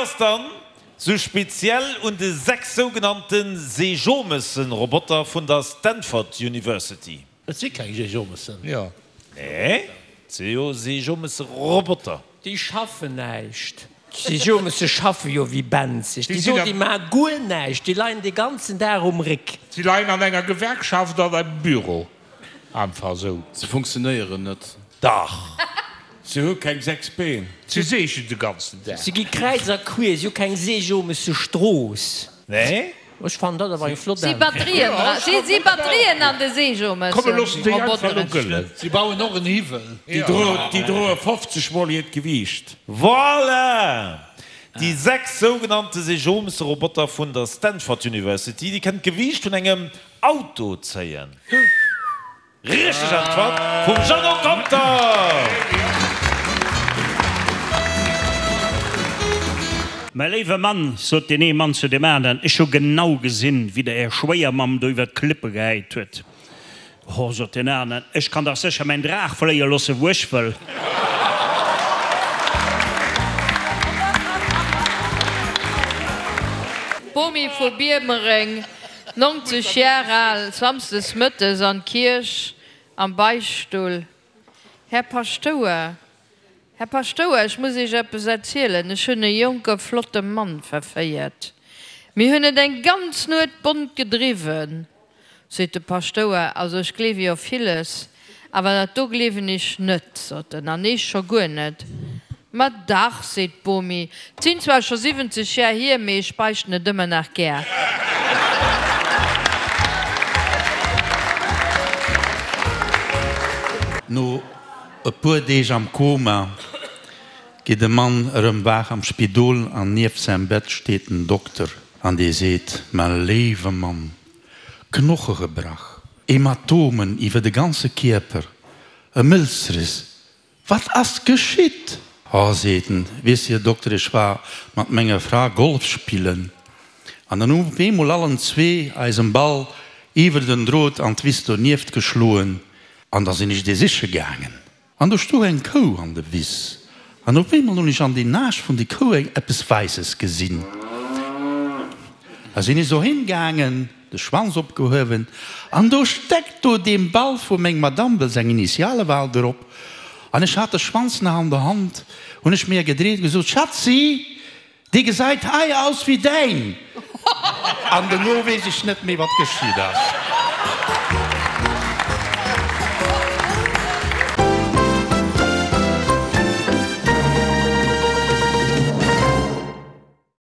ass dann sou speziell un de 6 sougenannte Seejomëssen-Roboter vun der Stanford University? Et si keng Seejomëssen. Jo. Nee, et si jo Seejomësse-Roboter. Déi schaffen näischt. D'Seejomësse schaffe jo wéi benzeg. Déi do, déi maache guer näischt. Déi leien de ganzen Dag um Réck. Si leien an enger Gewerkschaft an engem Büro. Einfach esou. Se funktionéieren net. Dach. Se hu keng 6 Been. Se seegen de ganzen Dag. Se gi kräiz a quier. Si hu keng Seejomesse Strooss. Nee. Ech fannen dat awer eng flott Si Äntwert. Batterien dra. Si si Batterien an de Komm mir loossen déi einfach elo Seejomesse-Roboteren. gëllen. Si bauen och en Hiwwel. Déi droen, déi droe 50 mol hiert Gewiicht. Voilà! Déi 6 sougenannte Seejomesse-Roboter vun der Stanford University, déi kënnen d'Gewiicht vun engem Auto zéien. Richteg Äntwert vum Jeannot Conter! Mäi léiwe Mann, sot deen ee Mann zu deem aneren, ech hu genau gesinn, wéi Der Är Schwéiermamm do iwwer d'Klippe gehäit huet. Ho, sot deen aneren, ech kann dach sécher mäin Draach fléie loosse wou ech wëll. D'Bomi vu Biermereng 90 Jar al, samsdes mëttes an d'Kierch am Beichtstull. Här Paschtouer, Här Paschtouer, ech muss Iech eppes erzielen, ech hunn e jonke flotte Mann verféiert. Mir hunn et eng ganz Nuet bont gedriwwen. Seet de Paschtouer, also ech gleewe jo villes, awer dat do gleewen ech net, sot en, an eech scho guer net. Ma dach, seet d'Bomi, 't sinn zwar scho 70 Jar hier, mee ech beichten et ëmmer nach gär. No e puer Deeg am Koma geet de Mann erëm waach am Spidol an nieft säim Bett steet den Dokter an dee seet, Mä léiwe Mann, Knoche gebrach, Hämatomen iwwer de ganze Kierper, e Mëlzriss, Wat ass geschitt? Oh, seet en, weess Här Dokter, ech war mat menger Fra Golf spillen an dann hu op eemol allen zwee eisen Ball iwwer den Drot an d'Wiss donieft geschloen an da sinn ech dee siche gaangen. An do stoung eng Kou an de Wiss an op eemol hunn ech an den Aarsch vun de Kou eng eppes Wäisses gesinn. Da sinn ech dohin gaangen, de Schwanz opgehuewen an do steckt do dee Ball vu meng Madame, well seng Initiale waren drop, an ech hat de Schwanz nach an der Hand, hunn ech mir gedreet, gesot, Schatzi, dee gesait hei aus wéi däin! An dono weess ech net méi wat geschitt ass.